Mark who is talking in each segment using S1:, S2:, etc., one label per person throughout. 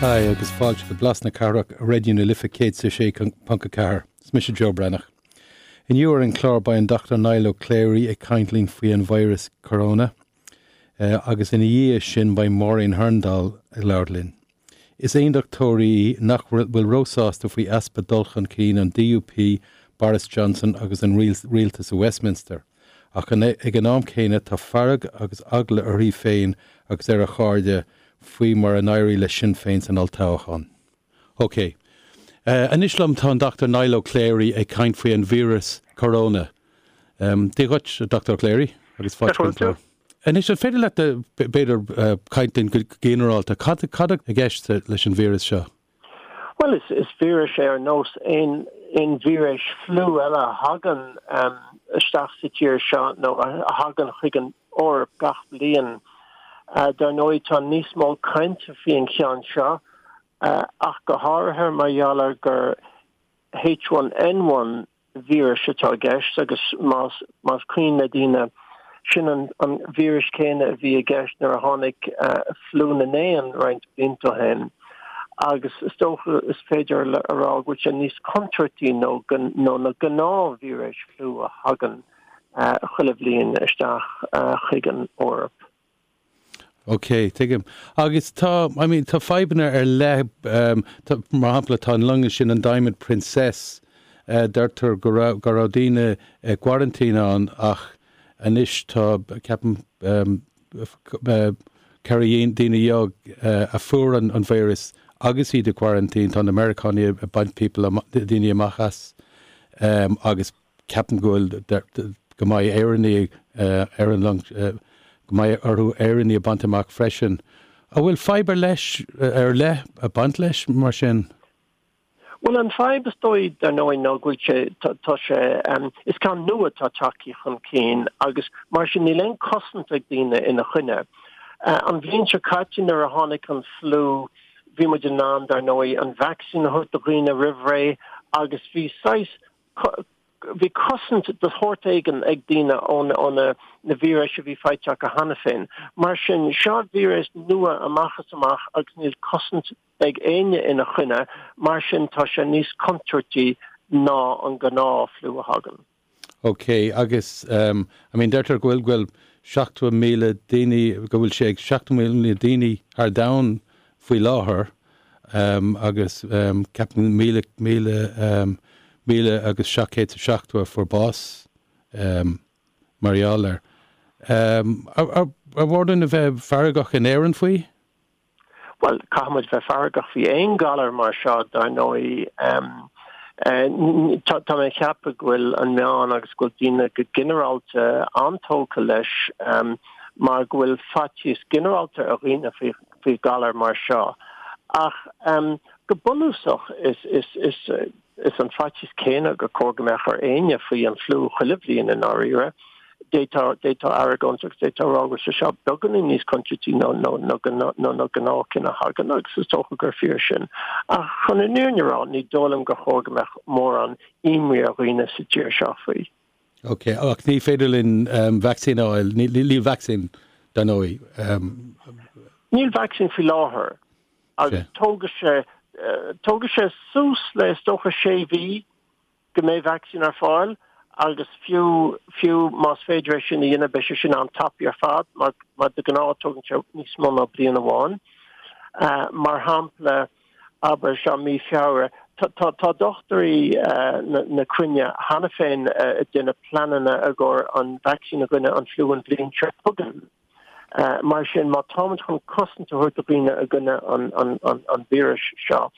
S1: Hi agus fáilte go Blas na Cathrach ar Raidió na Life 106.4. Is mise Joe Breathnach. Inniu ar an chlár beidh an Dr Niall Ó Cléirigh ag caint linn faoi an virus corona agus ina dhiaidh sin beidh Máirín Hurndall ag labhairt linn. Is aondachtóir í nach bhfuil róshásta faoi easpa dul chun cinn an DUP, Boris Johnson agus an rialtas i Westminster. Ach ag an am céanna tá fearg agus eagla uirthi féin agus ar a cairde faoi mar a d'éirigh le Sinn Féin san olltoghchán. OK. Anois liom tá an Dr Niall Ó Cléirigh ag caint faoi an víreas corona. Dia dhuit, a Dr Ó Cléirigh, agus fáilte chuig an chlár. Anois, an féidir leat, b'fhéidir, caint linn go ginearálta, cad atá i gceist leis an víreas seo?
S2: Bhuel, is víreas é ar nós aon víreas fliú eile a thagann isteach sa tír seo nó a thagann chuig an Eoraip gach bliain. Dar ndóigh, tá níos mó cainte faoi an cheann seo, ach go háirithe mar gheall ar gur H1N1 víreas atá i gceist agus más más cuimhin le daoine, sin an an víreas céanna a bhí i gceist nuair a tháinig fliú na n-éan roinnt blianta ó shin. Agus is dócha is féidir a rá go bhfuil sé níos contúirtí nó nó na gnáth-víreas fliú a thagann chuile bhliain isteach chuig an Eoraip.
S1: Ok, tuigim. Agus tá, I mean, tá fadhbanna ar leith, tá, mar shampla, tá an long sin, an Diamond Princess, deirtear go raibh, go raibh daoine i gquarantine ann ach anois tá, ceapaim, 14 daoine a fuair an an víreas agus iad i gquarantine, tá na Meiriceánaigh ag baint people, daoine amach as agus Ceapaim go bhfuil, go mbeidh Éireannaigh ar an long, go mbeidh orthu Éireannaigh a bhaint amach freisin. An bhfuil fadhb ar leis, ar leith ag baint leis mar sin?
S2: Bhuel, an fadhb is dóigh, dar ndóigh, ná go bhfuil sé, tá sé, is ceann nua atá tagtha chun cinn agus mar sin níl aon cosaint ag daoine ina choinne. An bhliain seo caite nuair a tháinig an fliú, bhí muid in ann, dar ndóigh, an vacsaín a thabhairt do dhaoine roimh ré agus bhí saghas Bhí cosaint de shórt éigin ag daoine ó na víris a bhí faighte acu cheana féin. Mar sin, seo víreas nua amach is amach agus níl cosaint ag éinne ina choinne, mar sin tá sé níos contúirtí ná an gnáth-fhliú a thagann.
S1: Ok, agus I mean deirtear go bhfuil, go bhfuil 70,000 daoine, go bhfuil sé ag 70,000 daoine thar domhan faoi láthair. agus ceapaim 1,770 a fuair bás mar gheall air. Ar mhór dúinn a bheith feargach in Éirinn faoi?
S2: Bhuel, caithfidh muid bheith feargach faoi aon ghalar mar seo, dar ndóigh. Tá mé ag ceapadh go bhfuil an meán agus go bhfuil daoine go ginearálta an-tógtha leis mar go bhfuil faitíos ginearálta ar dhaoine faoi faoi ghalar mar seo. Ach go bunúsach is is an faitíos céanna gur chóir go mbeadh ar éinne faoi an fliú chuile bhliain i ndáiríre. D'fhéadfá argóint agus d'fhéadfá a rá go bhfuil sé seo beagáinín níos contúirtí ná na gnáthchinn a thagann agus is dócha gur fíor sin. Ach chun an fhírinne a rá, ní dóigh liom gur chóir go mbeadh mórán imní ar dhaoine sa tír seo faoi.
S1: Ok, ach ní féidir linn vacsaín a fháil, níl vacsaín dar ndóigh.
S2: Níl vacsaín faoi láthair agus tógfaidh sé, tógfaidh sé suas le is dócha sé mhí go mbeidh vacsaín ar fáil agus fiú, fiú más féidir é sin a dhéanamh beidh sé sin an-tapaidh ar fad mar, mar de ghnáth tógann sé níos mó ná bliain amháin. Mar shampla, abair, seo mí Feabhra. Tá dochtúirí na cruinne cheana féin ag déanamh pleananna i gcomhair an vacsaín i gcoinne an fliú an bhliain seo chugainn. Mar sin, má táimid chun cosaint a thabhairt do dhaoine i gcoinne an víris seo,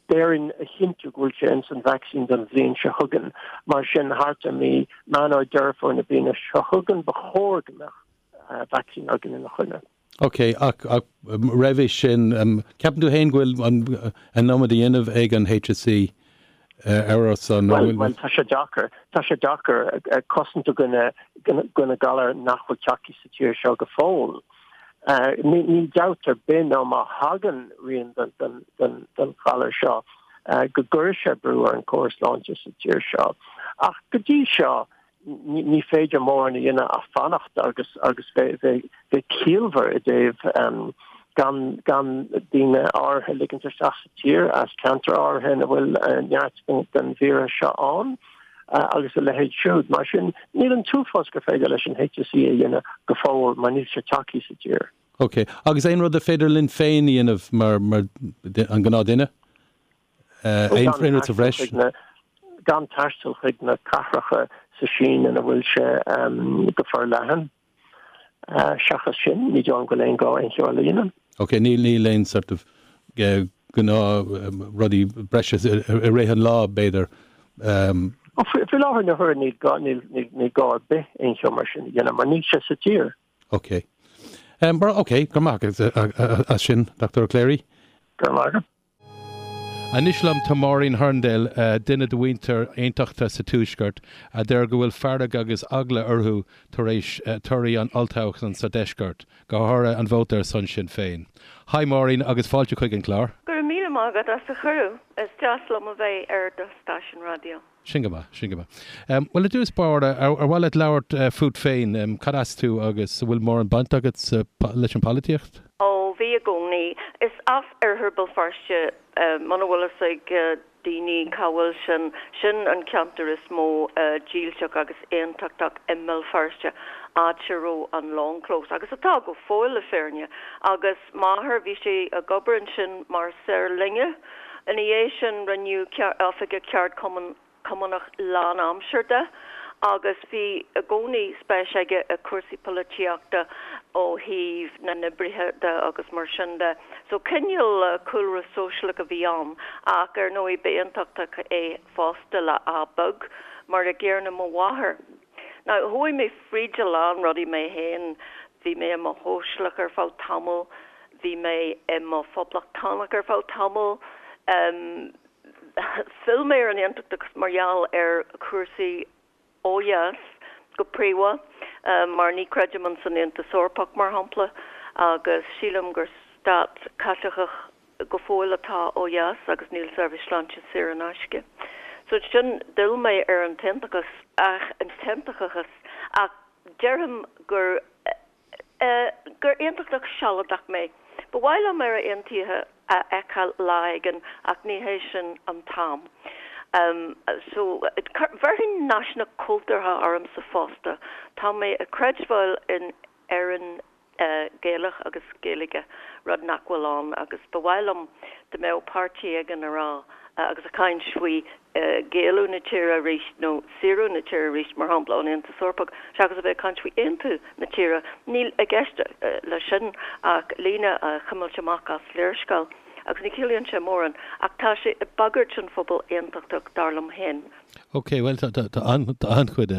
S2: déarfainn a chinntiú go bhfuil sé ins an vacsaín don bhliain seo chugainn. Mar sin, thart ar mí Meán nó Deireadh Fómhair na bliana seo chugainn, ba chóir go mbeadh vacsaín againn ina choinne.
S1: Ok, ach roimhe sin, ceapann tú féin go bhfuil an iomad á dhéanamh ag an HSE ar ár son?
S2: Bhuel, bhuel, tá sé deacair. Tá sé deacair cosaint i gcoinne galar nach bhfuil tagtha sa tír seo go fóill. Níl dabht ar bith ná má thagann rian den ghalar seo go gcuirfidh sé brú ar an gcóras sláinte sa tír seo. Ach go dtí seo, ní féidir mórán a dhéanamh ach fanacht agus agus bheith ciallmhar i dtaobh. Gan gan daoine áirithe a ligint isteach sa tír as ceantair áirithe ina bhfuil neart den víreas seo ann agus a leithéid siúd. Mar sin, níl an t-uafás gur féidir leis an HSE a dhéanamh go fóill mar níl sé tagtha sa tír.
S1: Ok. Agus aon rud a féidir linn féin a dhéanamh mar mar an gnáthduine? Aon rud sa bhreis?
S2: Gan taisteal chuig na cathracha sa Sín ina bhfuil sé go forleathan. Seachas sin, ní dóigh liom go bhfuil aon gá aon cheo eile a dhéanamh.
S1: Ok, níl, níl aon sort of gnáth rudaí breise i rith an lá, b'fhéidir.
S2: Faoi láthair na huaire níl gá, níl, níl gá ar bith aon cheo mar sin a dhéanamh mar níl sé sa tír.
S1: Ok. Ok, go raibh maith agat as sin, Dr. Ó Cléirigh.
S2: Go raibh maith agat.
S1: Anois liom tá Máirín Hurndall, duine de mhuintir aontachtaithe sa Tuaisceart, a deir go bhfuil fearg agus eagla orthu tar éis torthaí an olltoghcháin sa Deisceart, go háirithe an vóta ar son Sinn Féin. Hi Máirín agus fáilte chuig an chlár.
S3: Go raibh míle maith agat as an chuireadh. Is deas liom a bheith ar do stáisiún raidió.
S1: Sin go maith, sin go maith. Bhuel, i dtús báire, ar mhaith leat labhairt fút féin? Cad as tú agus an bhfuil mórán baint agat leis an polaitíocht?
S3: Ó, bhí i gcónaí. Is as oirthear Béal Feirste, muna bhfuil fhios ag daoine cá bhfuil sin, sin an ceantar is mó dílseach agus aontachtach i mBéal Feirste, áit a raibh an Long Close, agus atá go fóill le fírinne. Agus m'athair, bhí sé ag obair ansin mar saor loinge. Ina dhiaidh sin rinneadh oifigeach ceardchumainn Cumannach lán-aimseartha de agus bhí i gcónaí spéis aige i cúrsaí polaitíochta ó thaobh na n-oibrithe de agus mar sin de. So cineál cúlra sóisialach a bhí ann ach ar ndóigh ba aontachtach é fosta le A beag, mar a gcéanna mo mháthair. Now chuaigh mé fríd a lán rudaí mé féin, bhí mé i mo shóisialach ar feadh tamaill, bhí mé i mo phoblachtánach ar feadh tamaill, phill mé ar an aontachtachas mar gheall ar chúrsaí ó dheas go príomha, mar ní chreidim ins an Aontas Eorpach mar shampla agus sílim gur stát Caitliceach go fóill atá ó dheas agus níl seirbhís sláinte saor in aisce. So sin, d'fhill mé ar an t-aontachas ach an t-aontachtachas ach déarfainn gur eh gur aontachtach sealadach mé. Ba mhaith liom Éire Aontaithe a fheiceáil lá éigin ach ní hé sin an t-am. Um so bhéarfainn náisiúnach cultúrtha ormsa fosta. Tá mé ag creidbheáil in Éirinn Gaelach agus Gaeilge, rud nach bhfuil ann agus ba mhaith liom dá mbeadh páirtí éigin a rá agus a caint faoi Gaelú na tíre arís nó saoradh na tíre arís, mar shampla ón Aontas Eorpach, seachas a bheith ag caint faoi aontú na tíre. Níl i gceist leis sin ach líne a chuimilt amach as léarscáil agus ní chiallaíonn sé mórán ach tá sé ag bagairt an phobal aontachtach, dar liom féin.
S1: Ok, bhuel tá an-chuid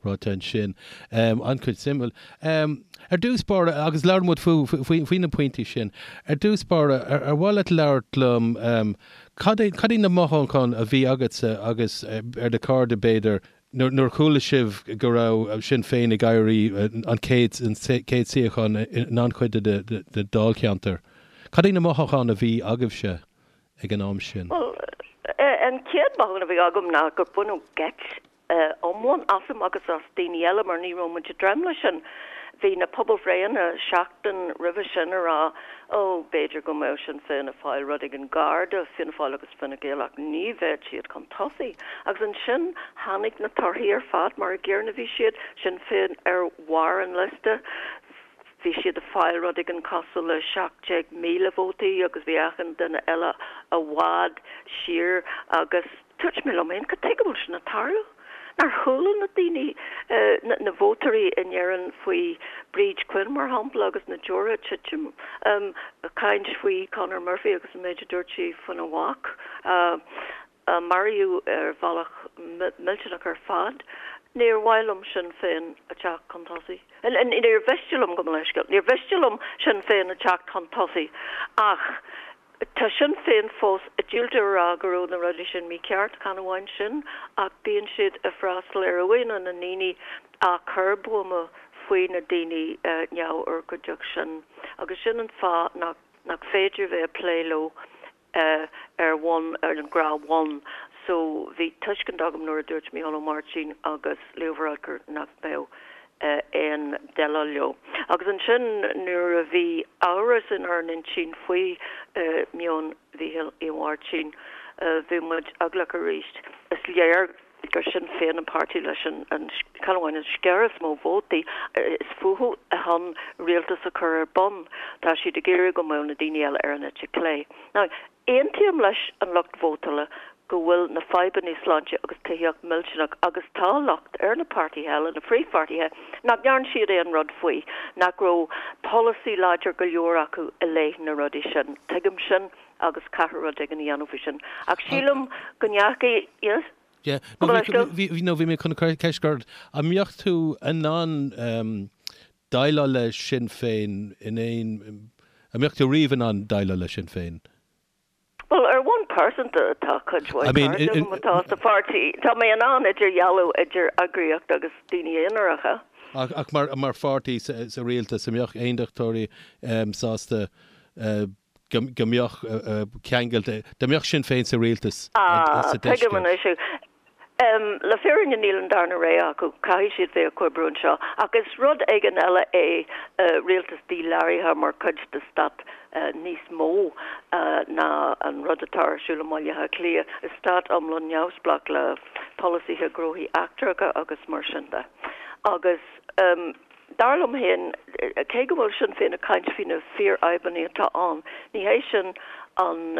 S1: ráite ansin, an-chuid suimiúil. Ar dtús báire, agus labhair muid faoi na pointí sin, ar dtús báire, ar mhaith leat labhairt liom, cad é, cad iad na mothúcháin a bhí agatsa agus ar do chairde b'fhéidir, nuair a chuala sibh go raibh Sinn Féin ag éirí an chéad, an chéad suíochán in an-chuid de na dáilcheantair? Cad iad na mothúcháin a bhí agaibhse? ag an am sin?
S3: Bhuel, an chéad mhothúchán a bhí agam ná gur baineadh geit iomlán asam agus as daoine eile mar ní raibh muid ag dréim leis sin. Bhí na pobalbhreitheanna seachtain roimhe sin a rá, ó, b'fhéidir go mbeadh Sinn Féin ag fáil rud éigin gar do Fianna Fáil agus Fine Gael ach ní bheadh siad chun tosaigh. Agus ansin tháinig na torthaí ar fad mar a gcéanna a bhí siad, Sinn Féin ar bharr an liosta, Bhí siad ag fáil rud éigin cosúil le 17,000 vótaí agus bhí achan duine eile i bhfad siar agus dúirt mé liom féin, cad tuige a bhfuil sin ag tarlú? Nár chuala na daoine, na vótóirí in Éirinn faoi Bríd Quinn mar shampla agus na deora ag titim, caint faoi Conor Murphy agus an méid a dúirt sí faoina mhac. a maraíodh ar bhealach millteanach ar fad. Níor mhaith liom Sinn Féin a teacht chun tosaigh. Níor mhiste liom, gabh mo leithscéal, níor mhiste liom Sinn Féin a teacht chun tosaigh ach tá Sinn Féin fós ag diúltú a rá go raibh na rudaí sin mícheart, chan amháin sin ach bíonn siad ag freastal ar uaigheanna na ndaoine a chuir buama faoi na daoine neamhurchóideach sin agus sin an fáth nach féidir bheith ag plé leo. ar bhonn, ar an ngnáthbhonn. So bhí tuiscint agam nuair a dúirt Mícheál Ó Máirtín agus Leo Varadkar nach mbeadh. Aon déileáil leo. Agus ansin nuair a bhí amhras inár n-intinn faoi meon Mhícheál Uí Mháirtín, bhí muid eaglach arís. Is léir gur Sinn Féin an páirtí leis an, chan amháin an sciar is mó vótaí, is fúthu chun rialtas a chur ar bun. Tá siad ag iarraidh go mbeadh na daoine eile ar an eite clé. Now, Aontaím leis an lucht vótála go bhfuil na fadhbanna sláinte agus tithíocht millteanach agus tá locht ar na páirtithe eile, na phríomhpháirtithe, nach ndearn siad aon rud faoi, nach raibh polasaí láidir go leor acu i leith na rudaí sin. Tuigim sin agus caithfear rud éigin a dhéanamh faoi sin. Ach sílim go ndeachaigh, yes?
S1: Yeah. No, bhí, no, bhí mé chun ceist a chur ort, an mbeadh tú in ann déileáil le Sinn Féin in aon, an mbeadh tú riamh in ann déileáil le Sinn Féin?
S3: Bhuel, ar bhonn pearsanta, tá cuid mhaith cairde agam atá sa pháirtí. Tá mé in ann idirdhealú idir eagraíocht agus daoine aonaracha.
S1: Ach mar, mar pháirtí sa rialtas, an mbeadh aondachtóirí sásta go mbeadh ceangailte, dá mbeadh Sinn Féin sa rialtas sa
S3: Ah, tuigim anois. Le fírinne níl an darna rogha acu, caithfidh siad bheith ag comhoibriú anseo. Ach is rud éigin eile é rialtas díláraithe mar chuid de stát níos mó ná an rud atá ar siúl i mBaile Átha Cliath. Is stát iomlán neamhspleách le polasaithe gnóthaí eachtracha agus mar sin de. Agus. Dar liom féin, cé go bhfuil Sinn Féin ag caint faoi na fíorfhadhbanna atá ann, ní hé sin an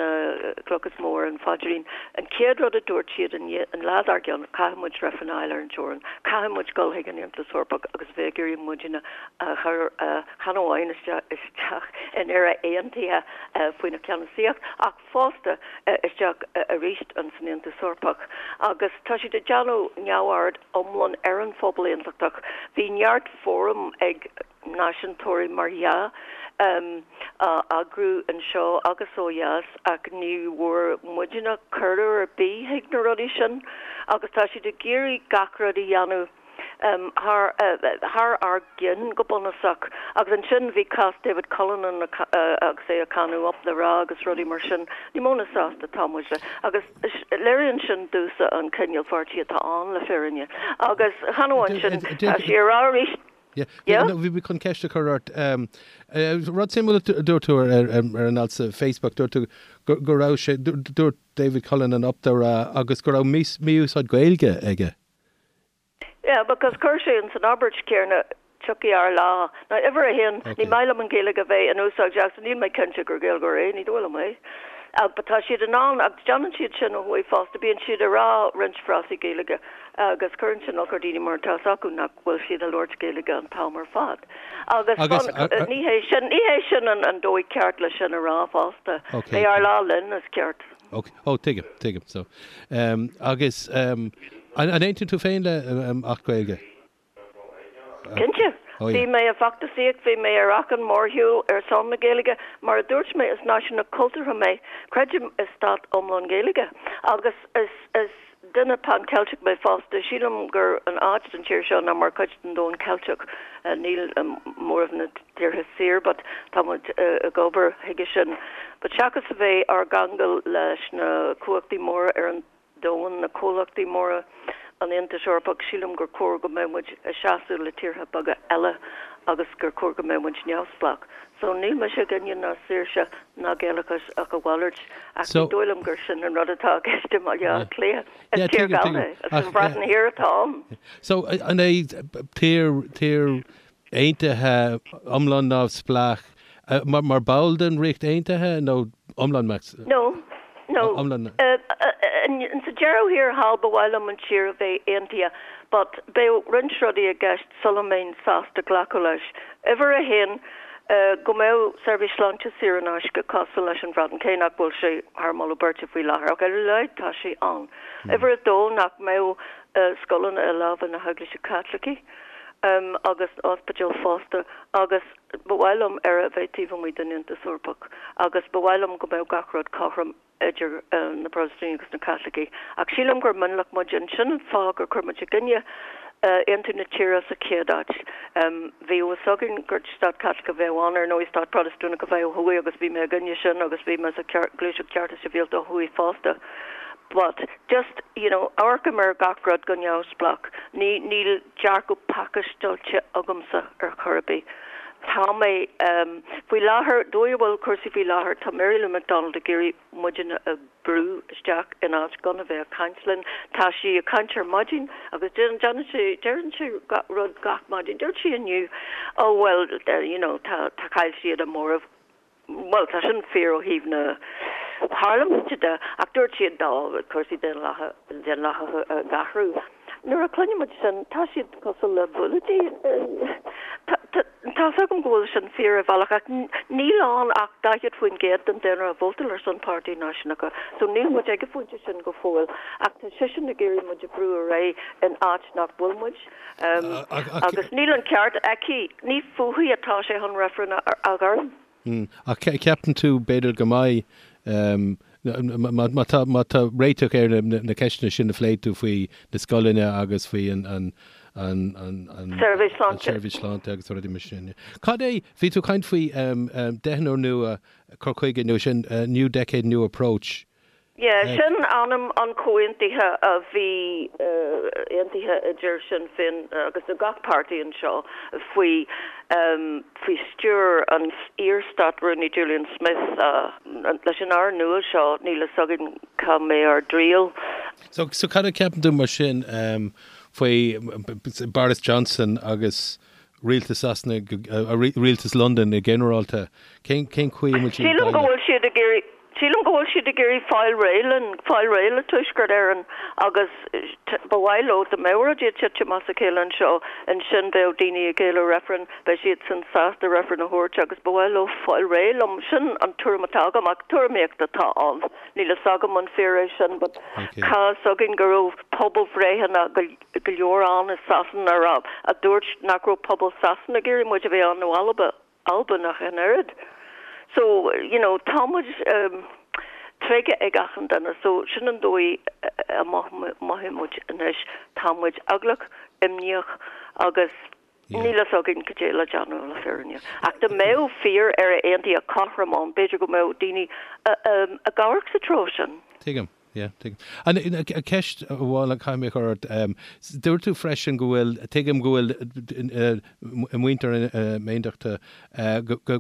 S3: chloch is mó ar an phaidrín. An chéad rud a dúirt siad an lá dár gcionn, caithfidh muid reifreann a fháil ar an teorainn, caithfidh muid dul chuig an Aontas Eorpach agus bheith ag iarraidh muidne a chur chan amháin isteach in Éire aontaithe faoina cheannasaíocht ach fosta isteach arís san Aontas Eorpach agus tá siad ag déanamh neamhaird iomlán ar an phobal aontachtach. Bhí neart fóram ag náisiúntóirí mar dhea á eagrú anseo agus ó dheas ach ní bhfuair muidne cuireadh ar bith chuig na rudaí sin agus tá siad ag iarraidh gach rud a dhéanamh thar thar ár gceann go bunúsach. Agus ansin bhí cás David Cullinane agus é ag cáineadh Up the Ra agus rudaí mar sin. Ní mó ná sásta atá muid le. Agus léiríonn sin domhsa an cineál pháirtí atá ann le fírinne. Agus chan amháin sin, tá sé ag rá arís.
S1: Yeah, bhí mé chun ceist a chur ort. Rud suimiúil a dúirt tú ar an alt sa Facebook, dúirt tú go raibh sé, dúirt David Cullinane Up the Ra agus go raibh mí-úsáid Gaeilge aige.
S3: Yeah, because chuir sé ins an abairt céanna tiocfaidh ár lá. Now, uimhir a haon, ní maith liom an Ghaeilge a bheith in úsáid agus níl mé cinnte gur Gaeilgeoir é, ní dóigh liom é. Ach but tá siad in ann, agus déanann siad sin ó thuaidh fosta, bíonn siad ag rá roinnt frásaí Gaeilge agus cuireann sin olc ar daoine mar tá 'fhios acu nach bhfuil siad ag labhairt Gaeilge an t-am ar fad. Agus Agus, ní hé sin, ní hé sin an an dóigh ceart le sin a rá fosta. Okay. Beidh ár lá linn is ceart.
S1: Ok, oh tuigim, tuigim. So, um, agus um, an, an aontaíonn tú féin le um, Acht Gaeilge?
S3: Cinnte. Oh, yeah. Bhí mé ag feachtasaíocht, bhí mé ar achan mórshiúl ar son na Gaeilge. Mar a dúirt mé, is náisiúnach cultúrtha mé. Creidim i stát iomlán Gaeilge. Agus is, is Duine Pan-Ceilteach mé fosta. Sílim gur an áit don tír seo ná mar chuid den domhan Ceilteach. Níl móramh na tíortha saor but tá muid ag obair chuige sin. But seachas a bheith ár gceangal leis na cumhachtaí móra ar an domhan, na comhlachtaí móra, an Aontais Eorpach, sílim gur chóir go mbeadh muid ag seasamh le tíortha beaga eile agus gur chóir go mbeadh muid neamhspleách. So níl mise i gcoinne ná saoirse ná Gaelachas ach a mhalairt ach ní dóigh liom gur sin an rud atá i gceist i mBaile Átha Cliath. Is tír Gallda é. Is an Bhreatain Thiar atá ann.
S1: So an é tír, tír aontaithe iomlán neamhspleách mar ball den Ríocht Aontaithe nó iomlán max?
S3: No. No. Sa deireadh thiar thall ba mhaith liom an tír a bheith aontaithe but beidh roinnt rudaí i gceist sula mbeinn sásta glacadh leis. Uimhir a haon, go mbeadh seirbhís sláinte saor in aisce cosúil leis an Bhreatain, cé nach bhfuil sé thar moladh beirte faoi láthair, ach ar a laghad tá sé ann. Uimhir a dó, nach mbeadh scoileanna i lámha na hEaglaise Caitlicí agus ospidéil fosta agus ba mhaith liom Éire a bheith taobh amuigh den Aontas Eorpach agus ba mhaith liom go mbeadh gach rud cothrom idir na Protastúnaigh agus na Caitlicigh. Ach sílim gur mionlach muid and sin an fáth gur chuir muid i gcoinne aontú na tíre sa chéad áit. Bhí a fhios againn gur stát Caitliceach a bheadh ann, ar ndóigh stát Protastúnach a bheadh ó thuaidh agus bhí mé i gcoinne sin agus bhí mé sa Ghluaiseacht Cearta Sibhialta ó thuaidh fosta. But just, you know, amharcaim ar gach rud go neamhspleách. Ní, níl dearcadh pacáisteáilte agamsa ar chor ar bith. Tá mé, em, faoi láthair, dóigh a bhfuil cúrsaí faoi láthair, tá Mary Lou McDonald ag iarraidh muidne a bhrú isteach in áit gan a bheith ag caint linn. Tá sí ag caint ar maidin agus déanann sí, deireann sí rud gach maidin. Dúirt sí inniu, oh well, you know, tá, tá chaill siad a móramh. Bhuel, tá sin fíor ó thaobh na parlaiminte de, ach dúirt siad dá cúrsaí daonlathacha ag athrú. Nuair a chluineann muid sin, tá siad cosúil le bullaidí. Tá's agam go bhfuil sin fíor ar bhealach, ach níl ann ach 40% den daonra a vótáil ar son Páirtí Náisiúnacha, so níl muid ag an phointe sin go fóill. Ach tá seisean ag iarraidh muid a bhrú ar aghaidh in áit nach bhfuil muid. Agus níl an ceart aici, ní fúithi atá sé chun reifreann a ghairm.
S1: Ach ceapann tú b'fhéidir go mbeidh, má tá, má tá réiteach ar na ceisteanna sin a phléigh tú faoi na scoileanna agus faoi an
S3: tSeirbhís Sláinte.
S1: tSeirbhís Sláinte agus rudaí mar sin. Cad é, bhí tú ag caint faoi deichniúr nua, cur chuige nua, sin New Decade New Approach.
S3: Yeah, sin ainm an chomhaontaithe a bhí aontaithe idir Sinn Féin agus gach páirtí anseo faoi faoi stiúir an iar-Stát-Rúnaí Julian Smith. Leis an Aire nua seo níl a fhios againn cá mbeidh ár dtriall.
S1: So, so cad a cheapann tú mar sin faoi Boris Johnson agus rialtas Sasana, rialtas Londain i ginearálta? Cén cén chaoi a bhfuil siad ag
S3: Sílim go bhfuil siad ag iarraidh Sílim go bhfuil siad ag iarraidh fáil réidh linn, fáil réidh le Tuaisceart Éireann agus ba mhaith leo dá mbeadh rudaí ag titim as a chéile anseo, ansin bheadh daoine ag éileamh reifreann, beidh siadsan sásta reifreann a thabhairt agus ba mhaith leo fáil réidh liom. Sin an tuairim atá agam ach tuairimíocht atá ann. Níl fhios agam an fíor é sin but tá fhios againn go raibh pobalbhreitheanna go leor ann i Sasana a raibh, a dúirt nach raibh pobal Sasana ag iarraidh muid a bheith ann nó Alba. Albain ach an oiread. So, you know, tá muid tréigthe ag achan duine so sin an dóigh a mothaíonn muid anois. Tá muid eaglach, imníoch agus níl fhios againn cad é le déanamh le fírinne. Ach dá mbeadh fíor Éire Aontaithe cothrom ann, b'fhéidir go mbeadh daoine ag amharc sa treo sin.
S1: Tuigim. Yeah, tuigim. An ceist amháin a chaithfidh mé a chur ort, dúirt tú freisin go bhfuil, tuigim go bhfuil muintir na hAontachta, go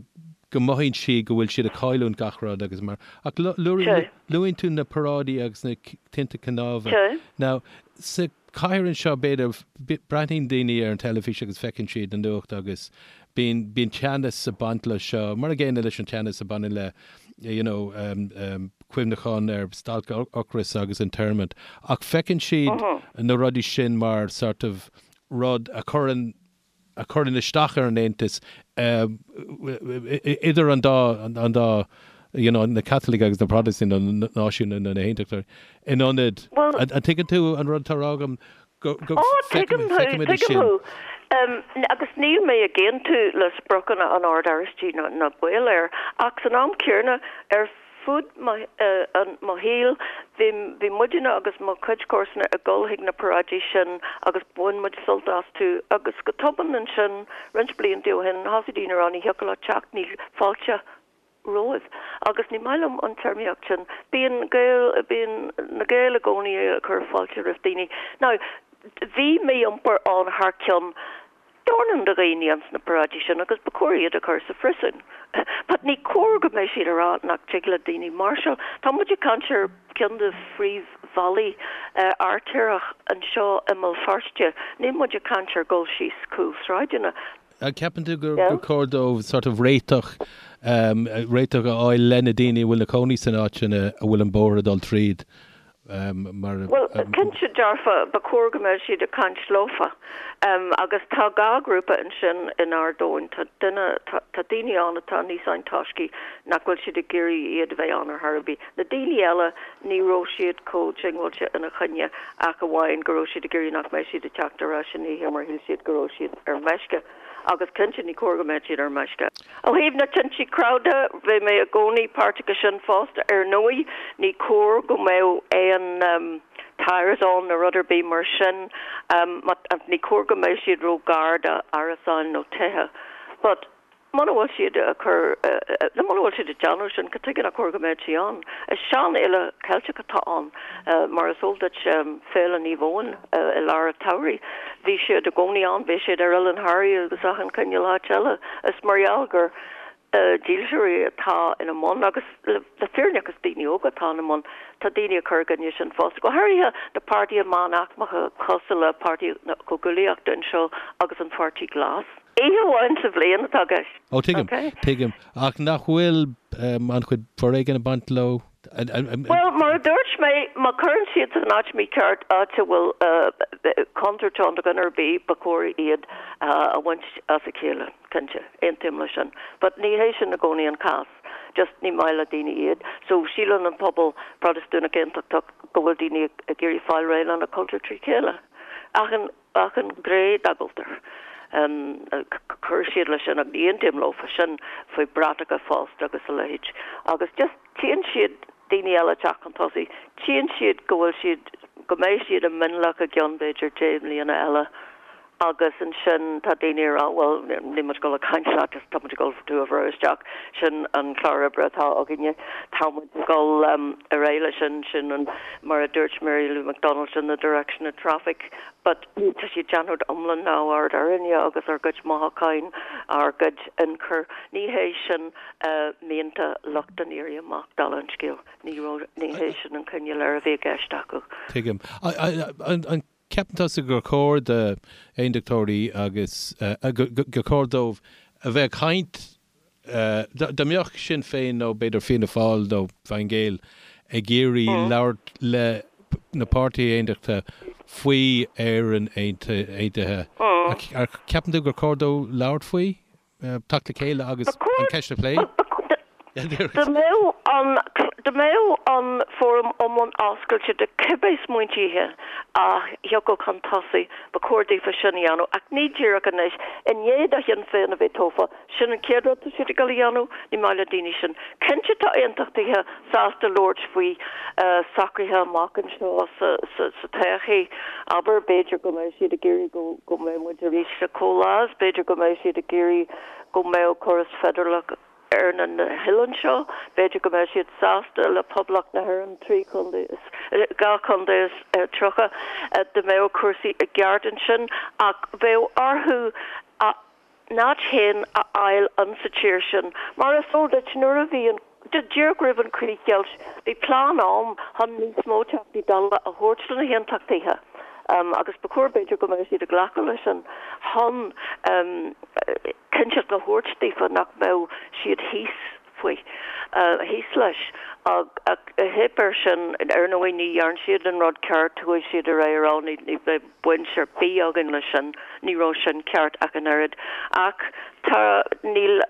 S1: go mothaíonn siad go bhfuil siad ag cailliúint gach rud agus mar, ach luann tú na paráidí agus na tinte cnámha. Now, sa chathair anseo, b'fhéidir, breathnaíonn daoine ar an teilifís agus feiceann siad na nuacht agus bíonn, bíonn teannas ag baint leis seo, mar an gcéanna leis an teannas a bhaineann le, you know, cuimhneachán ar stailc ocrais agus an Stormont. Ach feiceann siad na rudaí sin mar sort of rud a chuireann, a chuireann isteach ar an Aontas idir an dá, an dá, you know, na Caitlicigh agus na Protastúnaigh, na náisiúnaigh nó na hAontachtóirí, in ionad, an dtuigeann tú an rud atá á rá agam, go, go
S3: Ó, tuigim thú,
S1: feicimid
S3: tuigim
S1: sin.
S3: thú. Agus níl mé ag aontú le spriocanna an Ord Oráistigh ná baol air, ach san am céanna, ar fud mo shaoil, bhí bhí muidne agus mo chuid comharsana ag dul chuig na paráidí sin agus bhain muid sult astu agus go tobann ansin, roinnt blianta ó shin, thosaigh daoine a rá ní thiocfadh leat teacht, níl fáilte romhaibh. Agus ní maith liom an téarmaíocht sin. Bíonn Gaeil, bíonn na Gaeil i gcónaí ag cur fáilte roimh daoine. Now, bhí mí-iompar ann thar cionn dornán de dhaoine ins na paráidí sin agus ba chóir iad a chur sa phriosún. But ní cóir go mbeadh siad ag rá nach dtig le daoine máirseáil. Tá muid ag caint ar ceann de phríomhbhealaí artaireach anseo i mBéal Feirste. Níl muid ag caint ar dhul síos cúlsráideanna.
S1: An gceapann tú gur chóir dóibh sort of réiteach, réiteach a fháil le na daoine a bhfuil ina cónaí san áit sin a bhfuil an bóthar ag dul tríd?
S3: Mar. Bhuel, cinnte dearfa, ba chóir go mbeadh siad ag caint leofa. Agus tá dhá ghrúpa ansin in Ard Eoin. Tá duine, tá daoine ann atá níos antoiscí nach bhfuil siad ag iarraidh iad a bheith ann ar chor ar bith. Na daoine eile, ní raibh siad chomh diongbháilte ina choinne ach amháin go raibh siad ag iarraidh nach mbeadh siad ag teacht ar ais san oíche mar shíl siad go raibh siad ar meisce. Agus cinnte, ní cóir go mbeadh siad ar meisce. Ó thaobh na tinte cnámh de, bhí mé i gcónaí páirteach i sin fosta. Ar ndóigh, ní cóir go mbeadh aon tyres ann nó rud ar bith mar sin. Ní cóir go mbeadh siad ró-ghar d'árasáin nó tithe. But. Muna bhfuil siad ag cur, nó muna bhfuil siad ag déanamh sin, cad tuige nach cóir go mbeadh sí ann? Is seanfhéile Ceilteach atá ann. Mar is eol duit, Féile Naomh Eoin i lár an tsamhraidh, bhí siad i gcónaí ann, bhí siad ar Oileán Thoraí agus achan cineál áit eile. Is mar gheall gur dílseoirí atá ina mbun, agus le fírinne is daoine óga atá ina mbun, tá daoine ag cur i gcoinne sin fosta, go háirithe na páirtithe meánaicmeacha cosúil le Páirtí na Comhghuaillíochta anseo agus an Pháirtí Glas. Oíche amháin sa bhliain atá i gceist.
S1: Ó, tuigim, tuigim. Ach nach bhfuil an-chuid foréigin ag baint leo?
S3: Bhuel, mar a dúirt mé, má chuireann siad san áit mícheart, áit a bhfuil contúirt ann do dhuine ar bith, ba chóir iad a bhaint as a chéile, cinnte. Aontaím leis sin. But ní hé sin i gcónaí an cás. Just ní maith le daoine iad. So síleann an pobal Protastúnach Aontachtach go bhfuil daoine ag iarraidh fáil réidh lena cultúr trí chéile. Achan. Achan ghné dá gcultúr. Chuir siad leis sin, agus ní aontaím leo faoi sin, faoi bratacha fosta agus a leithéid. Agus just tchíonn siad daoine eile ag teacht chun tosaigh, tchíonn siad go bhfuil siad, go mbeidh siad i mionlach i gceann b'fhéidir 10 mbliana eile agus ansin tá daoine ag rá bhuel níl muid ag dul ag caint leat just tá muid ag dul tú a bhrú isteach, sin an clár oibre atá againne, tá muid ag dul ar aghaidh leis sin, sin an, mar a dúirt Mary Lou McDonald, sin the direction of traffic. But tá siad ag déanamh iomlán neamhaird orainne agus ár gcuid mothúcháin, ár gcuid ionchur. Ní hé sin mianta lucht an Éirí Amach, dála an scéil. Ní raibh, ní hé sin an cineál Éire a bhí i gceist acu.
S1: Tuigim. An ceapann tusa gur chóir d'aondachtóirí agus gur chóir dóibh a bheith ag caint Dá mbeadh Sinn Féin nó b'fhéidir Fianna Fáil nó Fine Gael ag iarraidh labhairt le na páirtithe aontachtacha faoi Éirinn aontaithe, an ceapann tú gur chóir dóibh labhairt faoi, teacht le chéile agus an cheist a phlé?
S3: Dá mbeadh an, dá mbeadh an fóram iomlán oscailte do cibé smaointithe a thiocfadh chun tosaigh, ba chóir daofa sin a dhéanamh, ach ní díreach anois, i ndiaidh do Shinn Féin a bheith tofa. Sin an chéad rud atá siad ag dul a dhéanamh, ní maith le daoine sin. Cinnte tá aontachtaithe sásta labhairt faoi socruithe amach anseo sa todhchaí. Abair, b'fhéidir go mbeidh siad ag iarraidh go mbeidh muid arís sa chomhleas, b'fhéidir go mbeidh siad ag iarraidh go mbeadh córas feidearálach ar na hoileáin seo, b'fhéidir go mbeidh siad sásta le Poblacht na hÉireann, 3 chontae is, 2 chontae is 30, dá mbeadh cúrsaí i gceart ansin ach bheadh orthu a n-áit féin a fháil insa tír sin. Mar is eol duit, nuair a bhí an, díreach roimh an chríochdheighilt, bhí plean ann chun níos mó Teachtaí Dála a thabhairt do na hAontachtaithe agus ba chóir, b'fhéidir, go mbeadh siad ag glacadh leis sin chun cinnteacht a thabhairt daofa nach mbeadh siad thíos faoi, thíos leis. Ach theip air sin. Ar ndóigh, ní dhearn siad an rud ceart, chuaigh siad ar aghaidh a rá ní bheidh baint ar bith againn leis sin, ní raibh sin ceart ach an oiread. Ach tá, níl,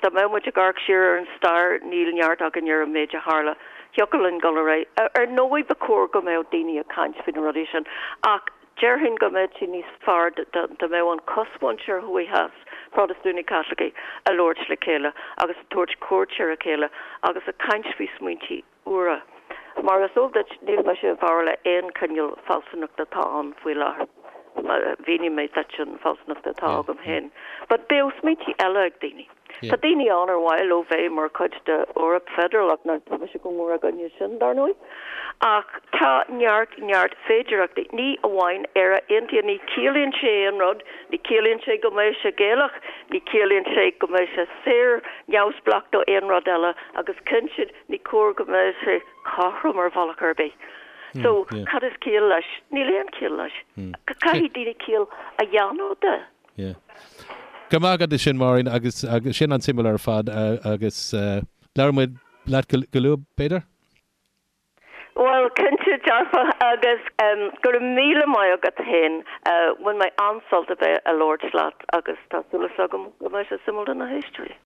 S3: dá mbeadh muid ag amharc siar ar an stair, níl neart againn ar an méid a tharla. Thiocfadh linn dul ar aghaidh. Ar ndóigh ba chóir go mbeadh daoine ag caint faoi na rudaí sin ach déarfainn go mbeadh sé níos fearr dá mbeadh an chosmhuintir thuaidh theas, Protastúnaigh Caitlicigh, ag labhairt le chéile agus ag tabhairt cuairt ar a chéile agus ag caint faoi smaointí úra. Mar is eol duit, níl mise i bhfabhar le aon chineál fealsúnachta atá ann faoi láthair. Mhínigh mé duit an fealsúnacht atá agam féin. But bheadh smaointí eile ag daoine. Tá daoine ann ar mhaith leo bheith mar chuid de Eoraip feidearálach, now tá mise go mór i gcoinne sin, dar ndóigh. Ach tá neart, neart féidearthachtaí. Ní amháin Éire Aontaithe, ní chiallaíonn sé aon rud, ní chiallaíonn sé go mbeidh sé Gaelach, ní chiallaíonn sé go mbeidh sé saor, neamhspleách do aon rud eile agus cinnte ní cóir go mbeadh sé cothrom ar bhealach ar bith. So, cad is ciall leis? Níl aon chiall leis. Caithfidh daoine ciall a dhéanamh de.
S1: Yeah. Go raibh maith agat as sin, Máirín, agus agus sin an-suimiúil ar fad agus labhróidh muid leat go luath, b'fhéidir?
S3: Bhuel, cinnte dearfa agus go raibh míle maith agat féin. Bhain mé an-sult a bheith ag labhairt leat agus tá súil agam go mbeidh sé suimiúil do na héisteoirí.